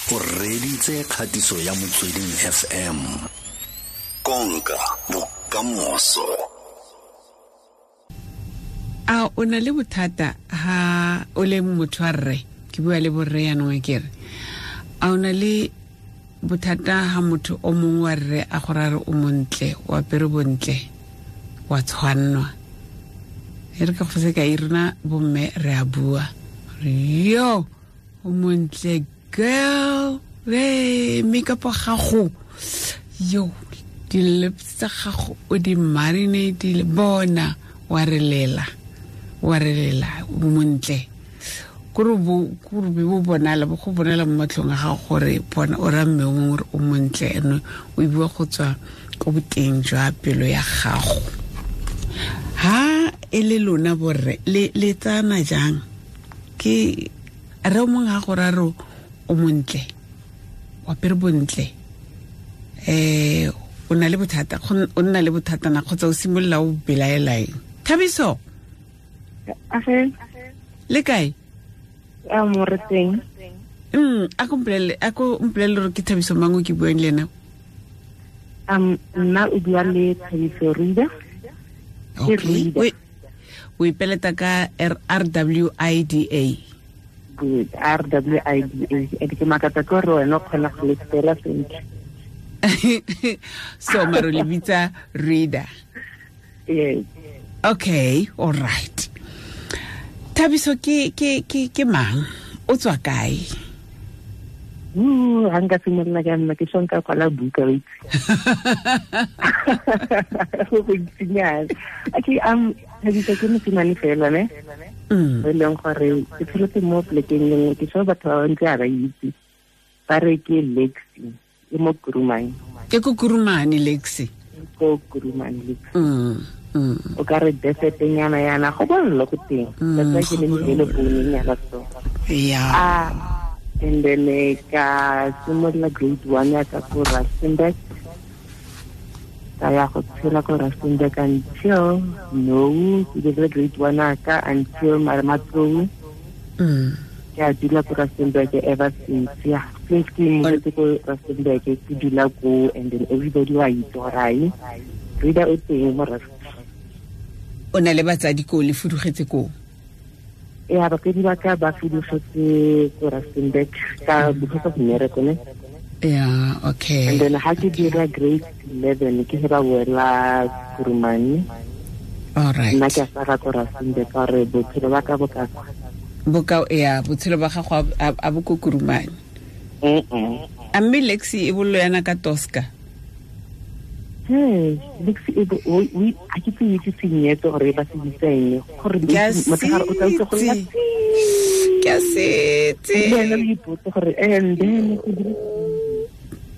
O reditse kgatiso ya Motsweding FM. Konka bokamoso. A o na le bothata ha o le motho wa rre? Ke bua le borre yanong, ke re a o na le bothata ha motho o mongwe wa rre a go rare o montle, o apere bontle, wa tshwannwa? E re ka go sekai, rona bomme re a bua re yo o montle girl, re makeup wa gago, yo di-lips tsa gago o di marinatile, bona wa re lela, wa re lela, o montle. Kore be bo bonala, bo go bonala mo matlhong a gago gore bona o ra mme o mongwe gore o montle, ene o bua go tswa ko boteng jwa pelo ya gago. Ha e le lona borre le tsana jang? Ke re o mongwe ga go ra re o montle, o apere bontle, o na le bothata, o nna le bothata na kgotsa o simolola o belaela eng? Thabiso? Age. Le kae? A mo re teng. A ko mpolelele, a ko mpolelele gore ke Thabiso mang o ke buang le ena? Nna o bua le Thabiso Rida. Ke Okay. Rida. O ipeleta ka R W I D A. Good. R W I D A. E ke makatsa ke gore wena o kgona go le spela sentle. So maro le bitsa Rida. Yes. Okay, all right. Thabiso ke mang? O tswa kae? Ha nka simolola ka nna ke sho nka kwala buka, wa itse. Go go ntsinyana. Okay, Thabiso ke mosimane fela, ne? E leng gore ke tsholetse mo plekeng e nngwe, ke sho batho ba bantsi ga ba itse. Ba re ke Lexi, e mo Kurumane. Ke ko Kurumane, Lexi. Ko Kurumane, Lexi. O ka re desert-nyana yana, go bollo ko teng. That's why ke le Go le bollo. poone-nyana so. And then ka simolola grade 1 ya ka ko Rustenburg. Ka ya go tshela ko Rustenburg until no, ke dirile grade 1 ya ka until Marematlou. Ke a dula ko Rustenburg ever since. Yeah, since ke movetse ko Rustenburg, ke dula ko, and then everybody wa itse gore ai, Rida o teng mo Rustenburg. O na le batsadi ko, le fudugetse ko? Ya, batsadi ba ka ba fudugetse ko Rustenburg ka because of mmereko, ne? Yeah, okay. And then ha ke dira grade 11, ke ge ba boela Kurumane. All right. Nna ke a sala ko Rustenburg ka gore bophelo ba ka bo ka kwa. Bo ka, ya, botshelo ba gago a bo ko Kurumane. A mme Lexi e bollo yana ka Tosca? Hey, Lexi e bo, o, o, a ke tse itse senyetso gore ba se bitsa eng, gore Ke a motshegare o tla utlwa go lla setse. Ke a setse. Le wena o ipotse gore, and then ke dire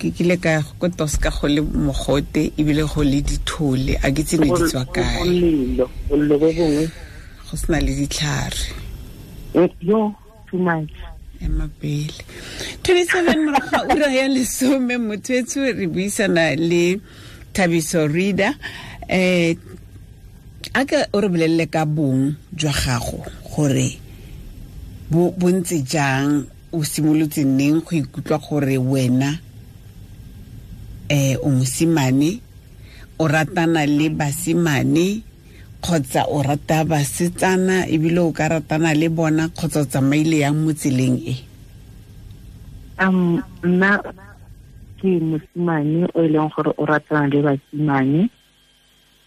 Ke kile ka ya ko Tosca go le mogote ebile go le dithole, a ke itse ne di tswa kae. Bolelo, bolelo bo bongwe. Go sena le ditlhare. Yo, too much. Ema pele. 27 morago ga ura ya lesome, motho etsho re buisana le Thabiso Rida. A ka o re bolelele ka bong jwa gago gore bo ntse jang, o simolotse neng go ikutlwa gore wena o mosimane, o ratana le basimane kgotsa o rata basetsana ebile o ka ratana le bona, kgotsa o tsamaile yang mo tseleng e? Nna ke mosimane o e leng gore o ratana le basimane,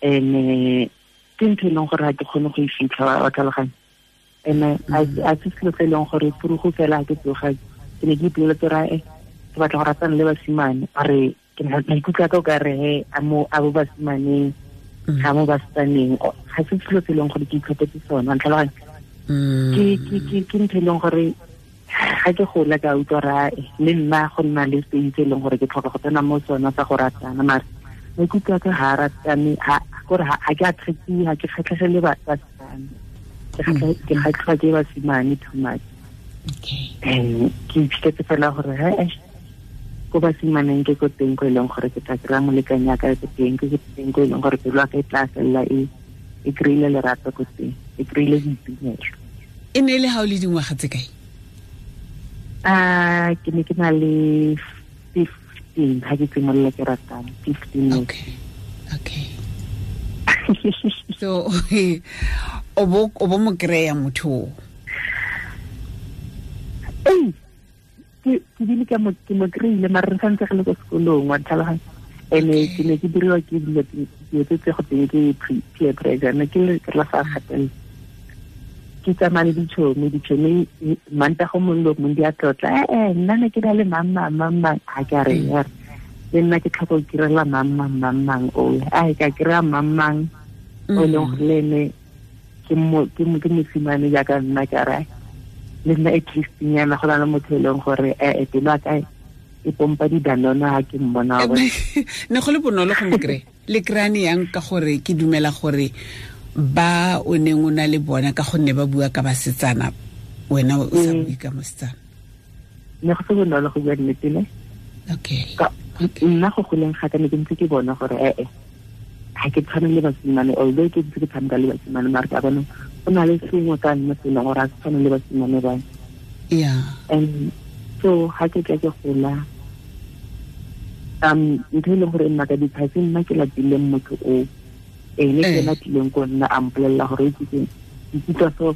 and ke ntho e leng gore ga ke kgone go e fitlha, wa tlhaloganya. And a se selo se e leng gore purugo fela ha ke tsoga, ke ne ke ipoleletse gore, ke batla go ratana le basimane, are ke maikutlo a ka o ka re, he, a mo, a bo basimaneng, ga mo basetsaneng. O, ga se selo se e leng gore ke itlhophetse sona, wa ntlhaloganya? Ke ntho e leng gore ga ke gola ka utlwa gore, le nna go nna le stage e leng gore ke tlhoka go tsena mo sona sa go ratana, mare maikutlo a ka ga a ratane, ha, kore ha, ha ke attractive, ha ke kgatlhegele basetsana. Ke kgatlhwa ke basimane too much. And ke iphitlhetse fela gore, he, ko basimaneng ke ko teng ko e leng gore ke tla kry-a molekane ya ka ko teng, ke ko teng ko e leng gore pelo ya ka e tla felela e kry-ile lerato ko teng, e kry-ile boitumelo. E ne e le ha o le dingwaga tse kae? Ke ne ke na le 15 ha ke simolola ke ratana, 15 years. Okay. So o bo mo kry-a motho o? Ee, ke bile ke mo kry-ile, mare re santse re le ko sekolong, wa ntlhaloganya. Ene ke ne ke diriwa ke dilo tse go teng ke peer pressure, ne ke le la sa gatelela. Ke tsamaya le ditšhomi Mantaga mongwe le mongwe di a tlotla, nna ne ke na le mang a ke a re le nna ke tlhoka go kirela mang o a ka kry-a mang o e leng gore le ene ke mosimane jaaka nna, ke a re le nna at least nyana go na le motho e leng gore pelo ya ka e pompa didanona ha ke mmona. Ne go le bonolo go mo kry-a le kry-ane yang, ka gore ke dumela gore ba o neng o na le bona ka gonne ba bua ka basetsana, wena o sa bue ka mosetsana. Ne go se bonolo go bua nnete ne. Okay. Nna go goleng ga ka ne ke ntse ke bona gore ga ke tshwane le basimane, although ke ntse ke tshameka le basimane, mare ka bona go na le sengwe ka nna se leng gore ga ke tshwane le basimane ba. Yeah. And so ga ke tla ke gola, ntho e leng gore nna ka diphase nna ke latileng motho o ene ke ena tlileng ko nna a mpolelela gore ke ikutlwa so.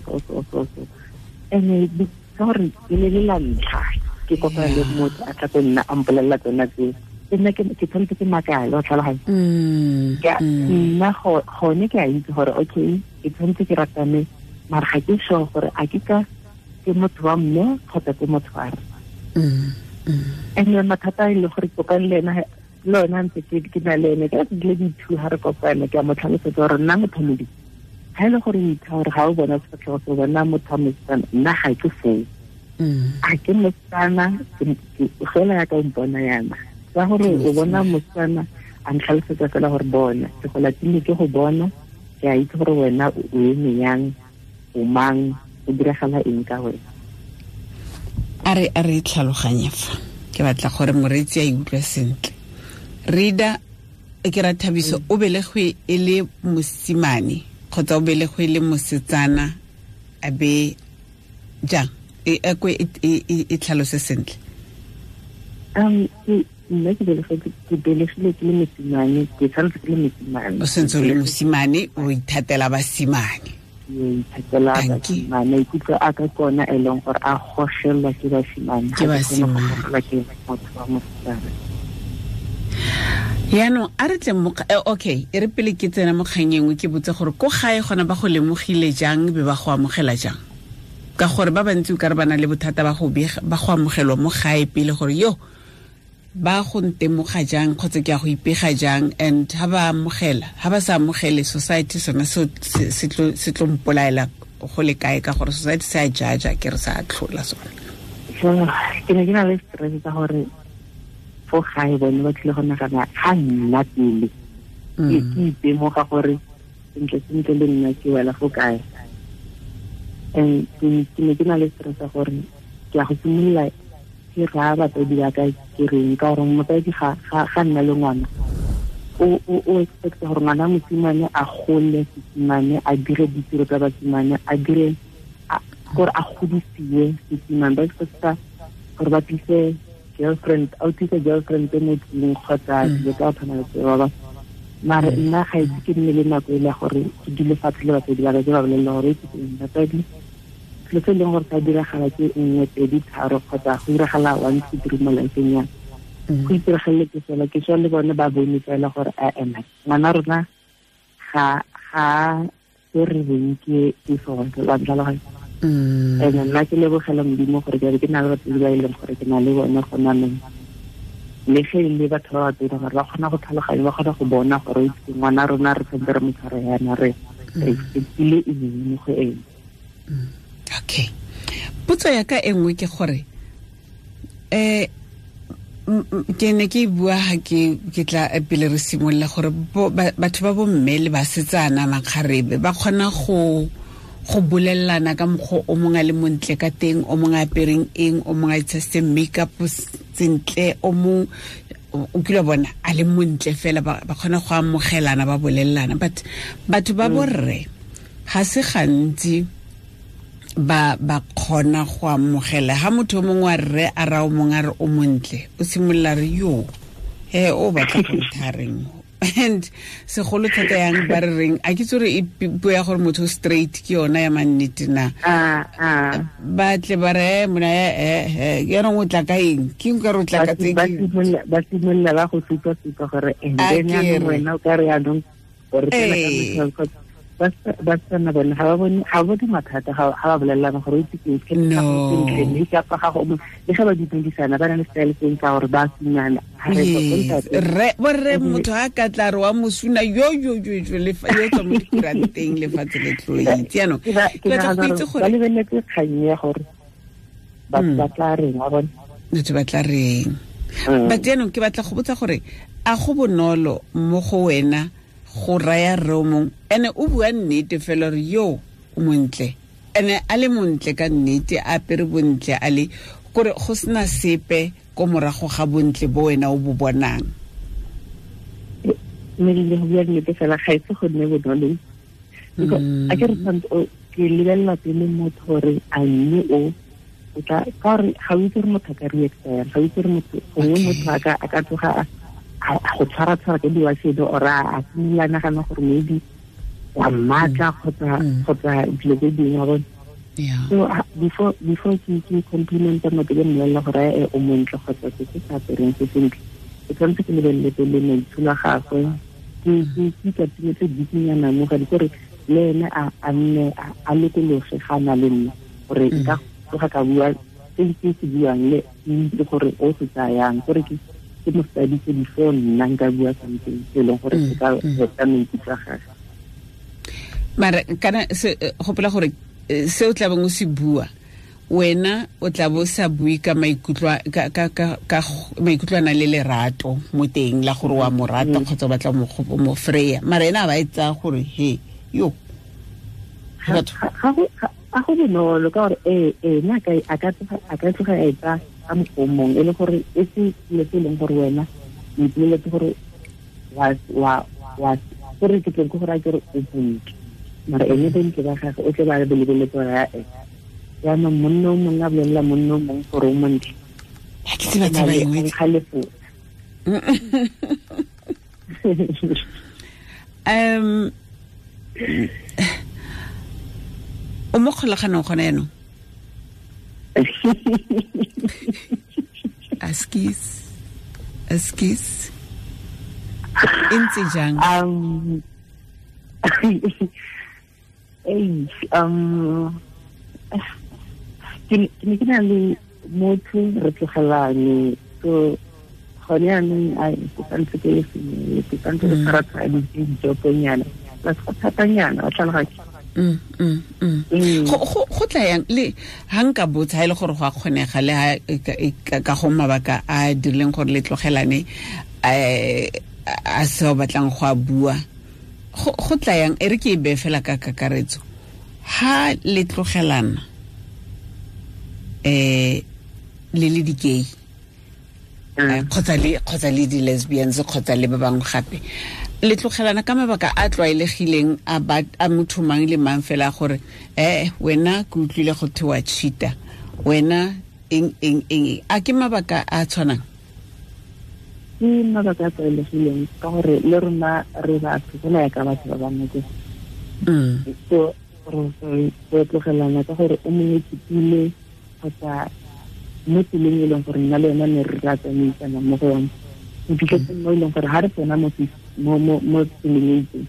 Ene ka gore e ne le la ntlha ke kopana le motho a tla ko nna a mpolelela tsona tseo, nna ke tshwanetse ke makale, wa tlhaloganya. Nna gone ke a itse gore okay ke tshwanetse ke ratane, mare ga ke sure gore a ke ka ke motho wa mme kgotsa ke motho wa rre. And mathata e le gore kopane le ena le ona ntse ke na le ene ka dile di-two ha re kopana, ke a mo tlhalosetsa gore nna motho modimo ga e le gore o itha gore ga o bona sefatlhego se bona motho wa mosetsana, nna ga ke foo. A ke mosetsana fela ya ka o mpona yana, ka gore o bona mosetsana a ntlhalosetsa fela gore bona ke go latile ke go bona, ke a itse gore wena o eme yang, o mang, o diragala eng ka wena. A re tlhaloganye fa ke batla gore moreetsi a e utlwe sentle. Rida ke ra Thabiso, o belegwe e le mosimane kgotsa o belegwe e le mosetsana, a be jang? E tlhalose sentle. Nna ke belegile ke le mosimane, ke tshwanetse ke le mosimane. O sentse o le mosimane, o ithatela basimane. Ithatela basimane, maikutlo a ka kona e leng gore a gogelwa ke basimane. Ke basimane. Ke motho wa mosetsana. Yaanong a re tle okay, e re pele ke tsena mo kgang e nngwe ke botse gore ko gae gona ba go lemogile jang be ba go amogela jang, ka gore ba bantsi o ka re ba na le bothata ba go amogelwa mo gae pele gore yo ba go ntemoga jang kgotsa ke a go ipega jang, and ha ba amogela, ha ba sa amogele society sona se tlo mpolaela go le kae, ka gore society se a jaja ke re sa tlhola sona. Ke ne ke na le stress ka gore fo gae bone ba tlile go nagana ga nna pele ke itemoga gore sentle sentle le nna ke wela fo kae. And ke ne ke na le stress gore ke a go simolola ke raya batsadi ba ka ke reng, ka gore motsadi ga nna le ngwana o expect gore ngwana mosimane a gole sesimane, a dire ditiro tsa basimane, a dire gore a godisiwe sesimane, ba expecta gore ba tlise girlfriend, a tlise girlfriend mo tlung kgotsa dilo tsa go tshwana le tseo ba. Mare nna ga itse ke nne le nako e le gore ke dule fatshe le batsadi ba ka ke ba bolelela gore ke batsadi selo se e leng gore sa diragala ke 1 2 3 kgotsa go diragala 1 2 3 mo lifeng ya go itiragaletse fela, ke swa le bone ba bone fela gore a ngwana rona ga se re reng ke sone, wa ntlhaloganya. And nna ke lebogela Modimo gore ke ke na le batsadi ba e leng gore ke na le bone gona nong, le ge e le batho ba batona gore ba kgona go tlhaloganya, ba kgona go bona gore ngwana rona re tshwanetse re mo tshware yana, re expectile eng mo go ene. Okay. Potso ya ka e nngwe ke gore ke ne ke bua ha ke tla pele re simolola gore batho ba bomme le basetsana makgarebe ba kgona go bolelelana ka mokgwa o mongwe a le montle ka teng, o mongwe a apereng eng, o mongwe a itshasitseng makeup sentle, o mongwe o kile bona a le montle fela, ba kgona go amogelana ba bolelelana. But batho ba borre ga se gantsi Ba kgona go amogela ha motho mongwe wa rre a ra o mongwe a re o montle o simolola re yo he o batla go nthareng and segolo thata yang ba re reng a ke tsore e puo ya gore motho straight ke yona ya mannete na ba tle ba re mona yaanong o tla ka eng ke nka re o tla ka tse ba simolola ba go supa gore and then yaanong wena o ka re yaanong gore tsena ka ba tsena bone ga ba bone mathata ga ba bolelelana gore o itse ke makeup ga go le ga ba dumedisana ba na le style seng sa gore ba sunana re borre motho a ka tla re wa mosuna yo yo yo yo le fa yo tswa mo dikuranteng lefatshe le tlo itse yaanong ke batla go itse gore ba lebeletse kgang ya gore batho ba tla reng wa bone batho ba tla reng but yaanong ke batla go botsa gore a go bonolo mo go wena go raya rre o mongwe ene o bua nnete fela gore yo o montle ene a le montle ka nnete a apere bontle a le kore go sena sepe ko morago ga bontle bo wena o bo bonang mme le go bua nnete fela ga ise go nne bonolo a ke re tshwanetse ke lebelela pele motho gore a mme o tla ka gore ga o itse gore motho a ka reacta yang ga o itse gore motho gongwe motho a ka tsoga a go tshwara ka diwasedi or a simolola nagana gore maybe wa mmatla kgotsa dilo tse dingwe wa bone so before ke complimenta motho ke mmolelela gore o montle kgotsa se se sa apereng se sentle ke tshwanetse ke lebelele pele maitsholo a gagwe ke ikatimetse bikinyana mo gadi kore le ene a nne a lokologe ga a na le nna gore nka tsoga ka bua se ke se buang le itse gore o se tsayang gore ke mo studies before nna nka bua something se leng gore se ka heta maikutlo a gagwe mara kana se gopola gore se o tla beng o se bua wena o tla bo sa bue ka maikutlo ka maikutlo a le lerato mo teng la gore wa mo rata kgotsa o batla mo freya mara ena a ba e tsaya gore he yo ga go bonolo ka gore ena a ka tloga a e tsaya ka mokgwa o mongwe e le gore e se selo se e leng gore wena o ipoleletse gore wa gore ke tleng ke gore a kere o bontle mara ene bontle ba gagwe o tle ba lebeletse gore ya e jaanong monna o mongwe a bolelela monna o mongwe gore o montle ga ke tseba taba engwe kgalefo o mo kgolaganong gona yaanong Askies e ntse jang ke ne ke na le motho re tlogelane so gone yaanong ke santse ke le sengwe ke santse ke tshwara dijoponyana plus go thatanyana wa tlhaloganya go tla yang le ha nka botsa ha e le gore go a kgonega le ha ka go mabaka a dirileng gore le tlogelane a se o batlang go a bua go tla yang e re ke e bee fela ka kakaretso ha le tlogelana le le di-gay kgotsa le di-lesbians kgotsa le ba bangwe gape le tlogelana ka mabaka a tlwaelegileng a motho mang le mang fela gore wena ke utlwile go thewa cheater wena eng eng eng a ke mabaka a tshwanang ke mabaka a tlwaelegileng ka gore le rona re batho fela ya ka batho ba bangwe ke so re tlogelana ka gore o mongwe tsipile kgotsa mo tseleng e leng gore nna le yona ne re ra tsamaisana mo go yone o fitlhetse mo e leng gore ga re tsena mo tseleng e itseng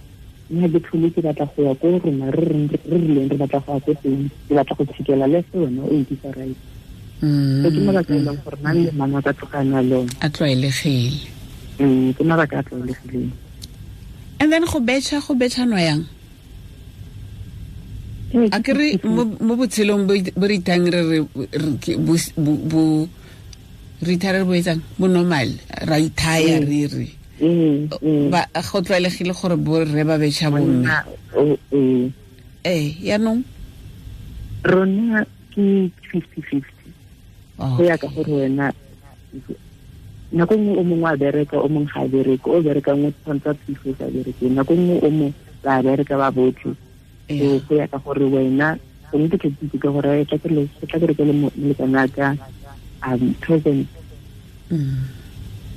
nna ke tlhole ke batla go ya ko rona re rileng re batla go ya ko teng ke batla go tshikela le se wena o nkisa right so ke mabaka e leng gore mang le mang a ka tlogana le one a tlwaelegile ke mabaka a tlwaelegileng and then go betšha yang a ke re mo botshelong bo re ithang re bo re ithaya re bo etsang bo normal ra ithaya re re ba go tlwaelegile gore bo rre ba betšha bomme yaanong rona ke 50-50 go ya ka gore wena nako nngwe o mongwe a bereka o mongwe ga a bereke o berekang o tshwanetse a thuso o sa bereke nako nngwe o mongwe ba bereka ba botlhe so go ya ka gore wena Gongwe ke tla itse ka gore tla ke rekele molekane wa ka present.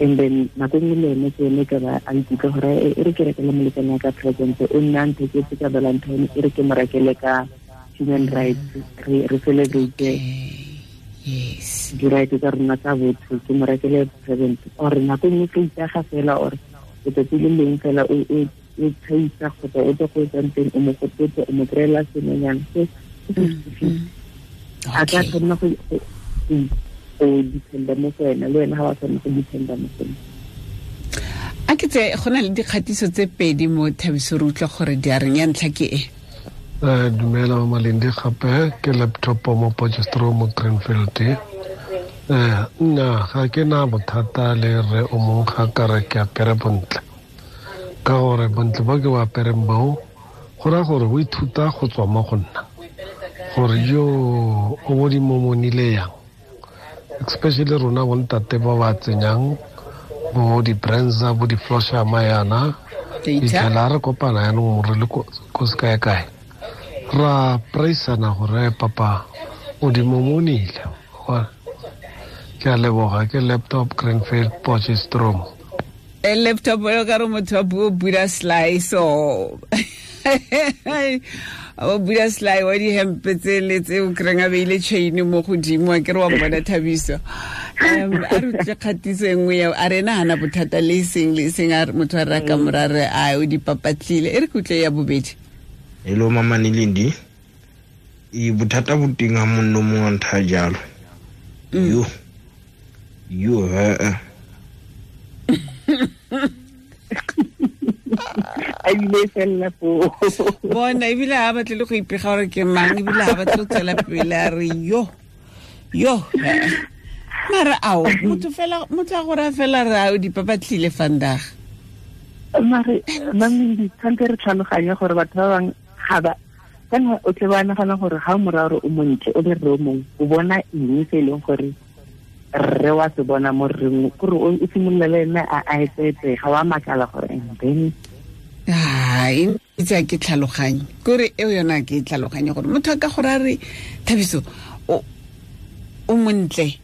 And then nako nngwe le ene ke ene ka ba a ikutlwa gore e re ke rekele molekane wa ka present, o nna ntheketse ka Valentine, e re ke mo rekele ka human rights, re celebrate yes di-right tsa rona tsa botho, ke mo rekele present. Or nako nngwe ke itsega fela, or letsatsi le leng fela o tshaisa kgotsa o tle go etsang teng, o mo gopotse, o mo kry-ela sengwenyana. So a ka tshwanela go dependa mo go wena, le wena ga wa tshwanela go dependa mo go ena. A ke tse go na le dikgatiso tse pedi mo Thabiso, re utlwa gore di a reng. Ya ntlha ke e. Dumela Mama Lindi, gape ke laptop mo Potchefstroom mo Greenfield. Nna ga ke na bothata le rre o mongwe ga ka re ke apere bontle, ka gore bontle bo ke bo apereng boo go raya gore o ithuta go tswa mo go nna, gore yo o bo di momonile yang, especially rona bontate ba ba tsenyang bo di-brands bo di-floshama yana, fitlhela re kopana yanong re le ko sekae-kae, ra praisana gore papa o di momonile. Ke a leboga. Ke laptop Greenfield Potchefstroom. Laptop o ka re motho wa puo Buddha slice o Buddha slice wa dihempe tse le tse o kry-ang a beile chain mo godimo, a ke re wa bona Thabiso. A re utlwe kgatiso e nngwe eo, a re ena gana bothata le eseng le eseng, a motho a re ka mora re a o dipapatlile. E re ke utlwe ya bobedi. Hello Mama Lindi. E bothata bo teng ha monno mongwe a ntha jalo. Yo. Yo a bile fela foo. Bona ebile ha batle le go ipega gore ke mang, ebile ha batle go tswela pele, a re yo yo. Mara ao motho fela, motho a gore fela re a o dipapatlile vandag. Mare Mamindi, tshwanetse re tlhaloganye gore batho ba bangwe ga ba kana o tle ba nagana gore ga o mora gore o montle o le rre o mongwe, o bona eng se e leng gore rre wa se bona mo rreng, kore o simolola le ene a etsetse, ga wa makala gore and then ai itse ke tlhaloganye kore eo yona ke tlhaloganye gore motho a ka gore a re Thabiso o montle.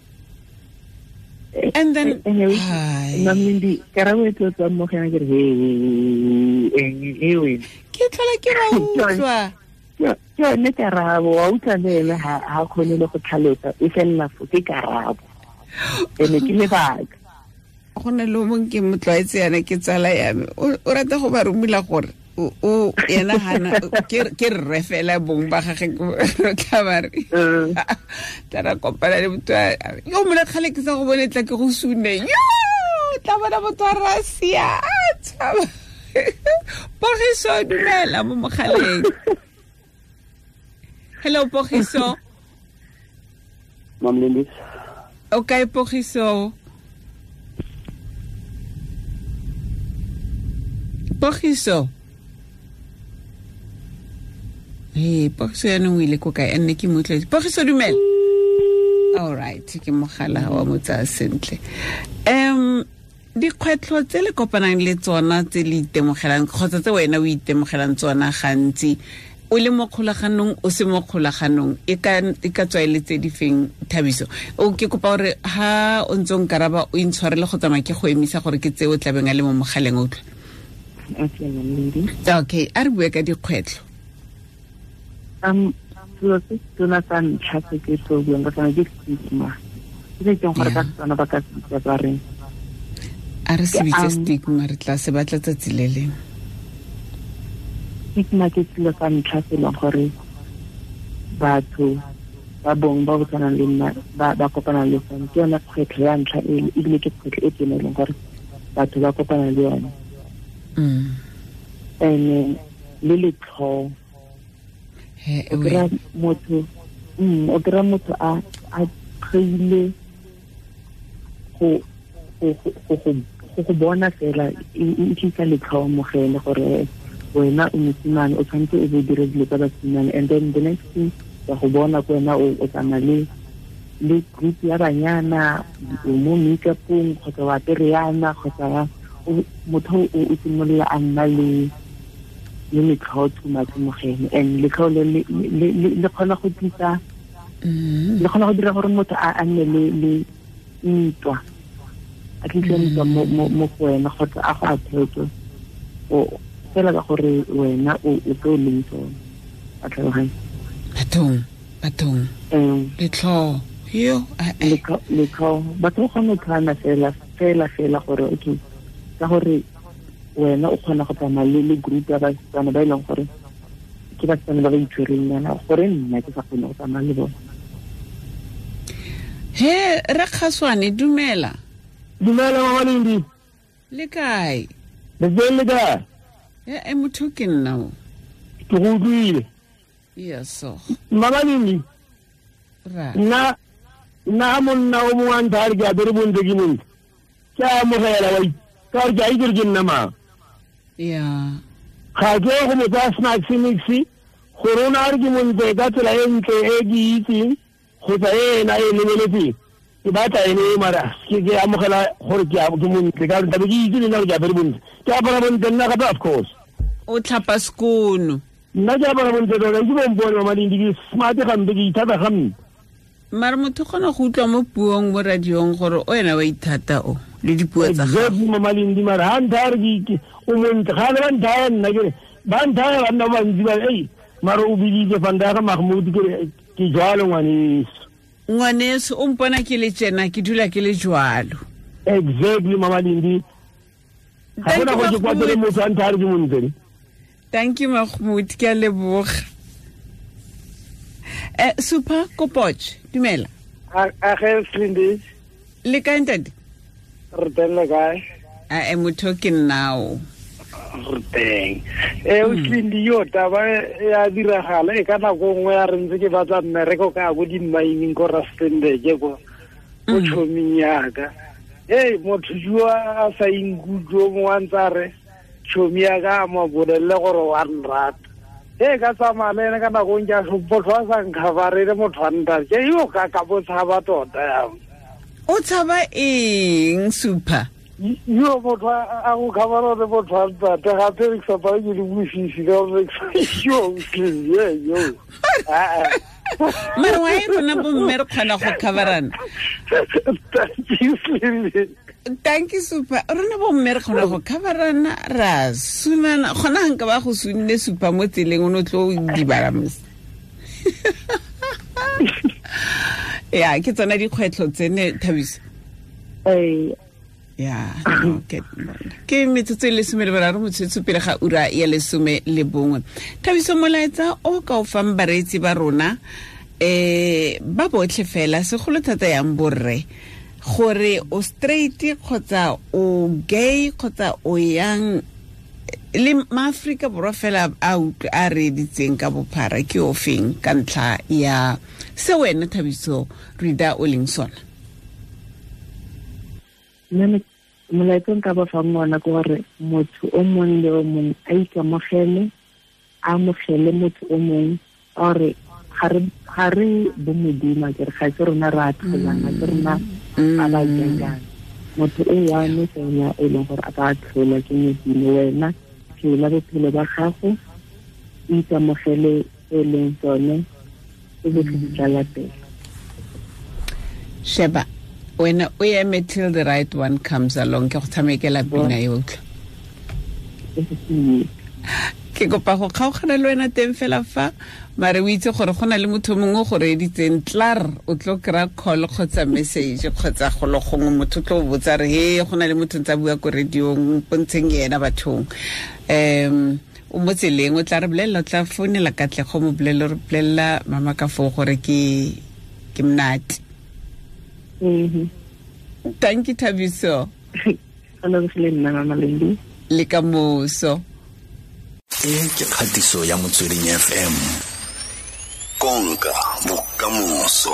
And then Mamindi, karabo e tlo tswang mo go yena ke re he ke tlhola ke ba utlwa ke yone karabo, wa utlwa le ene ha kgone le go tlhalosa, e felela fo ke karabo ene ke lebaka. Go na le o mongwe ke motlwaetse yana, ke tsala ya me, o rata go ba romela gore o yena hana ke rre fela bong ba gage, re tla ba re tla ra kopana le motho yo mole kgale ke sa go bone, tla ke go sune yo tla bona motho a rasia a tshaba. Pogiso, dumela mo mogaleng. Hello Pogiso. Mam Lindi. O kae Pogiso? Pogiso. Hey, Pogiso yaanong o ile ko kae? Nne ke mo utlwetse. Pogiso dumela. All right, ke mogala wa mo tsaya sentle. Dikgwetlho tse le kopanang le tsona tse le itemogelang kgotsa tse wena o itemogelang tsona gantsi o le mo kgolaganong o se mo kgolaganong e ka tswa e le tse di feng Thabiso? O ke kopa gore ha o ntse o nkaraba o intshwarele go tsamaya ke go emisa gore ke tse o tlabeng a le mo mogaleng, o utlwa. Okay, a re bue ka dikgwetlho. Selo se tona sa ntlha se ke tlo buang ka sone ke stigma. Ke se keng gore ka Setswana ba ka se bitsa ba reng? A re se bitse stigma, re tla se batla tsatsi le lengwe. Stigma ke selo sa ntlha se e leng gore batho ba bong ba bo tshwanang le nna ba kopana le sone. Ke yone kgwetlho ya ntlha ebile ke kgwetlho e tona e leng gore batho ba kopana le yone. And le letlhoo. O kry-a motho a tlhoile go go bona fela e tlisa letlhoo mo go ene gore wena o mosimane o tshwanetse o bo dire dilo tsa basimane. And then the next thing ya go bona ko wena o tsamaya le group ya banyana, o mo make-upong kgotsa wa apere yana kgotsa motho o simolola a nna le Le letlhoo too much mo go ene, and letlhoo le le kgona go tlisa, le kgona go dira gore motho a nne le ntwa, a tlise ntwa mo go wena, kgotsa a go attack o fela ka gore wena o tlo leng tsone. A tlhaloganya? Bathong letlhoo yo letlhoo, batho ba kgona go tlhana fela gore okay, ka gore wena o kgona go tsamaya le group ya basetsana ba e leng gore ke basetsana ba ba itshwereng yana, gore nna ke sa kgone go tsamaya le bone. He re Kgaswane, dumela. Dumela Mama Lindi. Le kae? Le teng, le kae? E motho ke nna o. Ke go utlwile. Yes. Mama Lindi. Ra. Nna monna o mongwe a ntha re ke apere bontle ke montle. Ke a amogela wa ka gore ke a itse gore ke nna mang. Ya. Ga ke go mo tsaya snacks mix gore o ne a re ke montle ka tsela e ntle e ke itseng kgotsa e ena e lebeletseng. Ke batla ene e mara ke amogela gore ke montle ka gore tlabe ke itse le nna gore ke apere bontle. Ke apara bontle nna gape, of course. O tlhapa sekono. Nna ke apara bontle tota, ke bompone Mama Lindi, ke smart gampe, ke ithata gampe. Mara motho kgona go utlwa mo puong mo radiong gore o ena wa ithata o le dipuo tsa gago. Exactly Mama Lindi, mara ha ntha re ke o montle, ga le ba nthaya nna ke re ba nthaya banna ba bantsi ba ei mara o biditse fa nthaya ga Mahmoud ke re ke jwalo ngwaneso. Ngwaneso o mpona ke le tjena, ke dula ke le jwalo. Exactly Mama Lindi. Ga gona go ke kwatele motho a nthaya re ke montle. Thank you Mahmoud, ke a leboga. Super Kopoch, dumela. A ge Slindi. Le kae ntate? Re teng, le kae? A motho ke nnao. Re teng. O Slindi yo taba ya diragala e ka nako nngwe ya re ntse ke batla mmereko ka go di mining ko Rustenburg ko ko tšhoming yaka. Hey, motho jo a sa inkutlwe mongwe a ntse a re tšhomi ya ka a mo bolelele gore wa nrata. E ka tsamaya le ene ka nako ke a motho a sa nkhabarele motho a ntate ke yo ka bo tshaba tota yang. O tshaba eng Super? Yo motho a go khabara le motho a ntate gape re sa pa ke le bosisi ka gore yo yo. Mara wa e rona bomme re kgona go khabarana. Thank you Super. Rona bomme re kgona go khabarana ra sunana gona nka ba go sunne Super mo tseleng o no tlo dibala mos. Ya ke tsona dikgwetlho tsene Thabiso. Ya, okay. Ke metsotso e 13 motsotso pele ga ura ya 11. Thabiso, molaetsa o ka o fang bareetsi ba rona ba botlhe fela segolo thata yang borre gore o straight kgotsa o gay kgotsa o yang le maAfrika Borwa fela a utlwe a reeditseng ka bophara ke o feng ka ntlha ya se wena Thabiso Rida o leng sona? Nna molaetsa nka ba fang ona ke gore motho o mongwe le o mongwe a ikamogele, a amogele motho o mongwe, gore ga re bo Modimo ke re ga se rona re a tlholang, ga se rona a ba jang. Motho o one fela e leng gore a ka tlhola ke Modimo. Wena phela bophelo ba gago, o ikamogele e leng tsone, e botlhe di tla latela. Sheba wena o eme till the right one comes along. Ke go tshamekela pina e utlwa. Ke kopa go kgaogana le wena teng fela fa mare o itse gore go na le motho mongwe go reeditseng tlar o tlo kry-a call kgotsa message kgotsa golo gongwe motho tlo botsa re he go na le motho ntse a bua ko radiong pontsheng ena bathong. O mo tseleng o tla re bolelela, o tla founela Katlego mo bolelele, re bolelela mama ka foo gore ke monate. Thank you Thabiso. Le ka moso. E ke kgatiso ya Motsweding FM. Konka bokamoso.